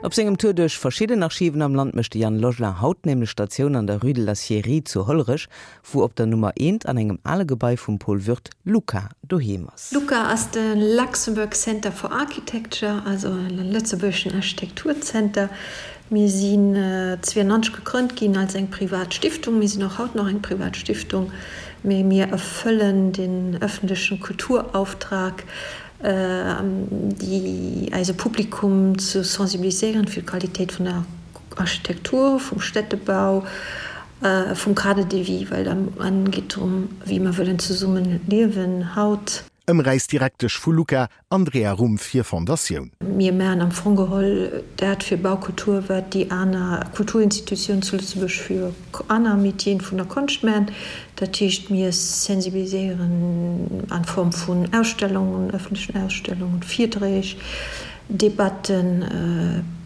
Op sengem Tour duerch verschidden Archiven am Land mécht de Yann Logelin haut nämlech Statioun an der Rue de la Scierie zu Hollerech, wou op der Nummer eent an engem ale Gebai vum Paul Würth LUCA doheem ass. LUCA ass de Luxembourg Center for Architecture, also e lëtzebuergeschen Architekturzenter. Mir sinn 92 gegrënnt ginn als eng privat Stiftung. Mir sinn och haut nach eng privat Stiftung, mee mir erfëllen den öffentlechen Kulturauftrag, déi eise Publikum ze sensibiliséieren fir d'Qualitéit vun der Architektur, vum Städtebau, vum Cadre de vie, well am Enn geet drëm, wéi mer wëllen zesummen liewen haut. Ëmräisdirektesch vu LUCA, Andrea Rumpf hir Fondatioun. Mir maachen am Fong geholl dat fir Baukultur, wat déi aner Kulturinstitutiounen zu Lëtzebuerg fir aner Métieren vun der Konscht maachen. Dat heescht, mir sensibiliséieren an Form vun Ausstellungen, öffentlechen Ausstellungen, Virträg, Debatten,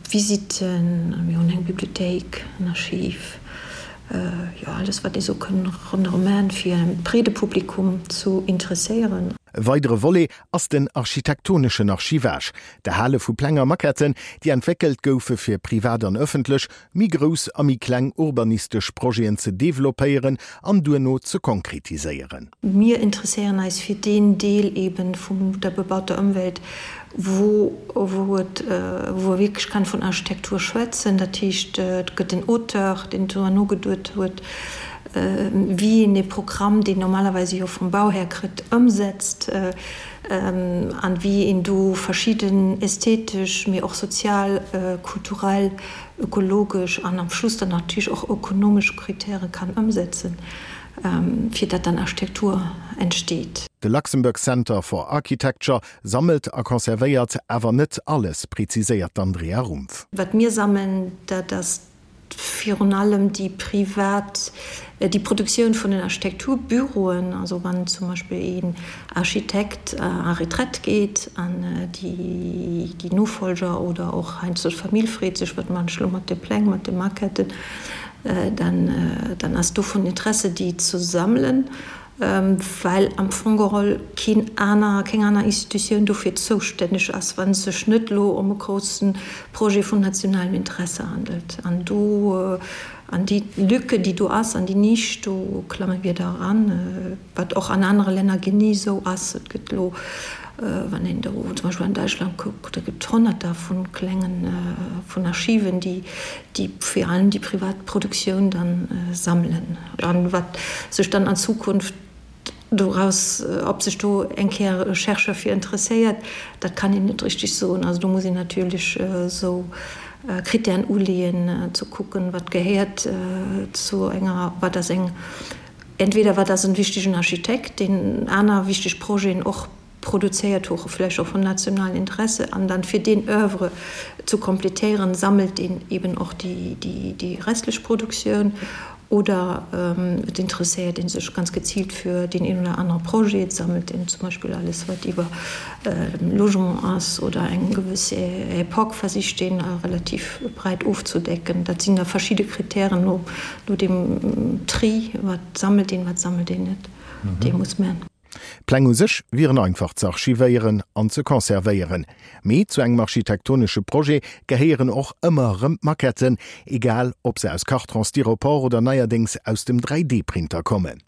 Visitten, mir hunn eng Bibliothéik, en Archiv, jo alles wat ee sou kënn ronderëm maachen, fir e breede Publikum zu interesséieren. E weidere Volet ass den architektoneschen Archivage, d'Erhale vu Pläng a Maquetten, déi entwéckelt goufe fir privat an ëffentlech, méi grouss a méi kleng urbanistesch Projeten ze developpéieren an duerno ze konkretiséieren. Mir interesséieren eis fir deen Deel eben vun der bebauter Ëmwelt, wou wou et wou e wierklech kann vun Architektur schwätzen. Dat heescht, et gëtt en Auteur, deen driwwer nogeduet huet, wéi een ee Programm, deen normalerweise jo vum Bauhär kritt, ëmsetzt an wéi een do verschidden ästhetesch, mee och sozial, kulturell, ökologesch an am Schluss dann natierlech och ökonomesch Kritäre kann ëmsetzen, fir datt dann Architektur entsteet. De Luxembourg Center for Architecture sammelt a conservéiert awer net alles, preziséiert d'Andrea Rumpf. Wat mir sammeln, dat ass virun allem déi privat, déi Produktioun vun den Architekturbüroen, also wann zum Beispill een Architekt a Retraite geet an déi Nofolger oder och heiansdo d'Famill freet sech, wat man ech elo mat de Pläng, mat de Maquetten, dann ass do vun Interesse déi ze sammelen. well am Fong geholl keen aner, keng aner Institutioun dofir zoustänneg ass, wa et sech net elo ëm e grousse Projet vun nationalem Interesse handelt. An do, an déi Lücke, déi do ass, an déi Nisch, do klamme mir da eran, wat och an anere Länner genee esou ass. Et gëtt elo, wann een do zum Beispill an Däitschland kuckt, do gëtt et Honnerter vu klengen, vun Archiven, déi, déi virun allem déi privat Produktioun dann sammelen. An wat sech dann an Zukunft doraus, ob sech do eng Kéier e Chercheur fir interesséiert, dat kann een net richtig soen. Also do muss een natierlech esou Kritären uleeën, ze kucken, wat gehéiert zu enger, wat ass eng, entweder wat ass en wichtegen Architekt, deen aner wichteg Projeten och produzéiert hu, vläicht och vun nationalen Interesse, an dann fir deen Oeuvre zu kompletéieren, sammelt een eben och déi restlech Produktioun oder et interesséiert ee sech ganz geziilt fir deen een oder anere Projet, et sammelt een zum Beispill alles wat iwwer Logement ass oder eng gewëss Epoque versicht een relativ breit ofzedecken. Dat sinn da verschidde Kritären no deem Tri, wat sammelt een, wat sammelt een net, dee muss man. D'Pläng u sech wieren einfach ze archivéieren an ze conservéieren, mee zu engem architektonesche Projet gehéieren och ëmmer erëm d'Maquetten, egal ob se aus Carton, Styropor oder neierdéngs aus dem 3D-Printer kommen.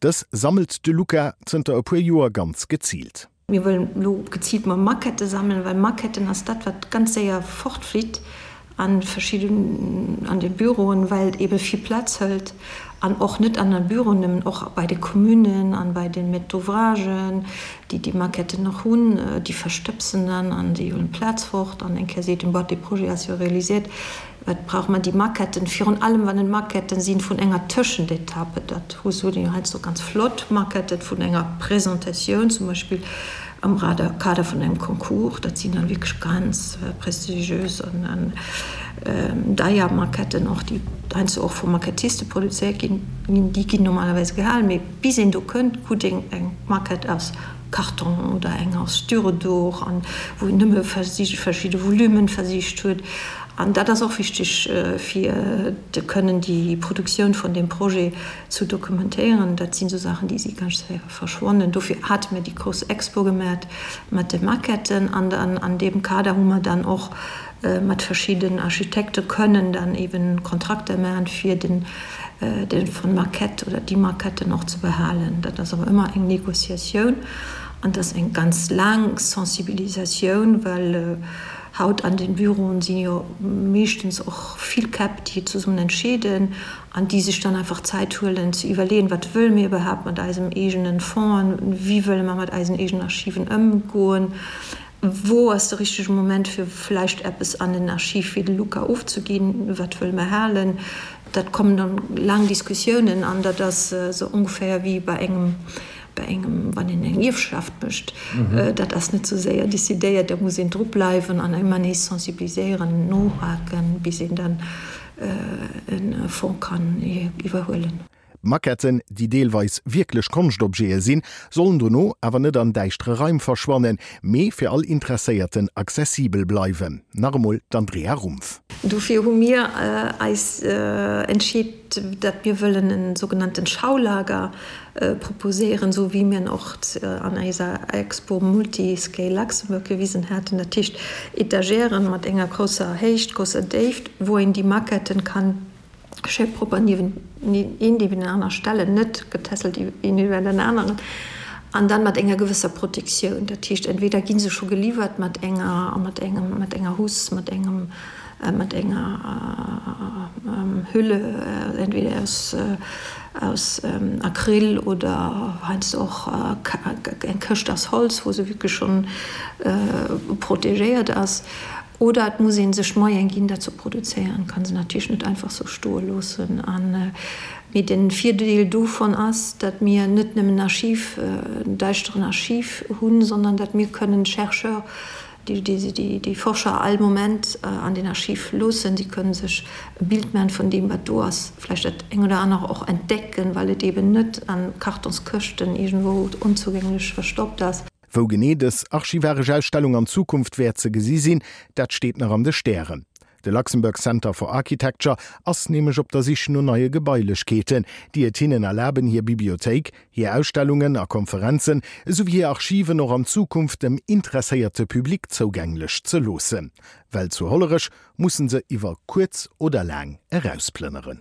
Dës sammelt de Luca zënter e puer Joer ganz geziilt. Mir wëllen elo geziilt mol Maquettë sammelen, well Maquetten ass dat, wat ganz séier fortflitt an verschidden, an de Büroen, well et eebe vill Plaz hëlt an och net an de Büroen nëmmen, och bei de Communen an bei de Maîtres d'ouvragen, déi déi Maquetten nach hunn, déi verstëbsen dann an déi huelen d'Plaz fort an eng Kéier seet een, Boah, dee Projet ass jo réalisiert, wat brauche mer déi Maquetten? Virun allem wann et Maquetten sinn vun enger Tëschentetappe, dat hu se jo heiansdo ganz flott Maquetten vun enger Presentatioun zum Beispill, Am Kader vun engem Concours, dat sinn dann wierklech ganz prestigiös an deier Maquetten och, déi heiansdo och vu Maquettiste produzéiert ginn, déi ginn normalerweis gehalen, mee bis een do kënnt, krut een eng Maquette aus Karton oder eng aus Styrodur an wou een nëmme verschidde Volumen versicht huet. An dat ass och wichteg, fir de kënnen déi Produktioun vun deem Projet zu dokumentéieren. Dat sinn esou Saachen, déi si ganz séier verschwonnen. Dofir hate mir déi grouss Expo gemat mat de Maquetten. An dann an deem Kader hu mer dann och mat verschidden Architekte kënnen dann eben Kontrakter maachen, fir den de von Maquette oder déi Maquetten och ze behalen. Dat ass awer ëmmer eng Négociatioun an dat ass eng ganz laang Sensibilisatioun, well Haut an den Büroen sinn jo meeschtens och vill Käpp, déi zesummen entscheeden an déi sech dann einfach Zäit huelen ze iwwerleeën, wat wëlle mir iwwerhaapt mat eisem eegenen Fonds, wéi wëlle mer mat eisen eegenen Archiven ëmgoen, wou ass de richtege Moment fir vläicht eppes an en Archiv wéi de LUCA ofzeginn, wat wëlle mer halen. Dat kommen dann laang Diskussiounen an dat ass esou ongeféier wéi bei engem bei engem, wann een eng Ierfschaft mécht, dat ass net sou séier décidéiert, da muss een dru bleiwen an ëmmer nees sensibiliséieren, nohaken, bis een dann e Fonds kann iwwerhuelen. D'Maquetten, déi deelweis wierklech Konschtobjete sinn, sollen dono awer net an däischtere Raim verschwannen, mee fir all Interesséierten accessibel bleiwen. Nach emol d'Andrea Rumpf. Dofir hu mir eis entscheet, datt mir wëllen e sougenannten Schaulager proposéieren, esou wéi mir en och an eiser Expo Multiscale Luxembourg gewisen haten, dat heescht Etagèren mat enger grousser Héicht, grousser Déift, wou een déi Maquetten kann schéi propper niewent een niewenaner stellen, net getässelt een iwwer den aneren, an dann mat enger gewësser Protektioun. Dat heescht, entweder gi se scho geliwwert mat enger, mat engem, mat enger Housse, mat engem, mat enger Hülle, entweder aus, aus Acryl oder heiansdo och eng Këscht aus Holz, wou se wierklech schonn protegéiert ass. Oder et muss ee sech d'Moyen ginn, dat ze produzéieren. Kann se natierlech net einfach sou stoe loossen. An, mee de Virdeel dovun ass, datt mir net nëmmen Archiv, en däischteren Archiv hunn, sondern datt mir kënnen Chercheur, déi Forscher all Moment an den Archiv loossen. Si kënnen sech e Bild maachen vun deem, wat do ass, vläicht dat eng oder anere och entdecken, well et eeben net a Kartonskëschten iergendwou onzougänglech verstoppt ass. Wou genee dës archivaresch Ausstellung an Zukunft wäert ze gesi sinn, dat steet nach an de Stären. De Luxembourg Center for Architecture ass nämlech op der Sich no neie Gebailechkeeten, déi et hinnen erlaben, hir Bibliothéik, hir Ausstellungen a Konferenzen esouwéi hir Archiven och an Zukunft dem interesséierte Public zougänglech ze loossen. Well zu Hollerech musse se iwwer kuerz oder laang erausplënneren.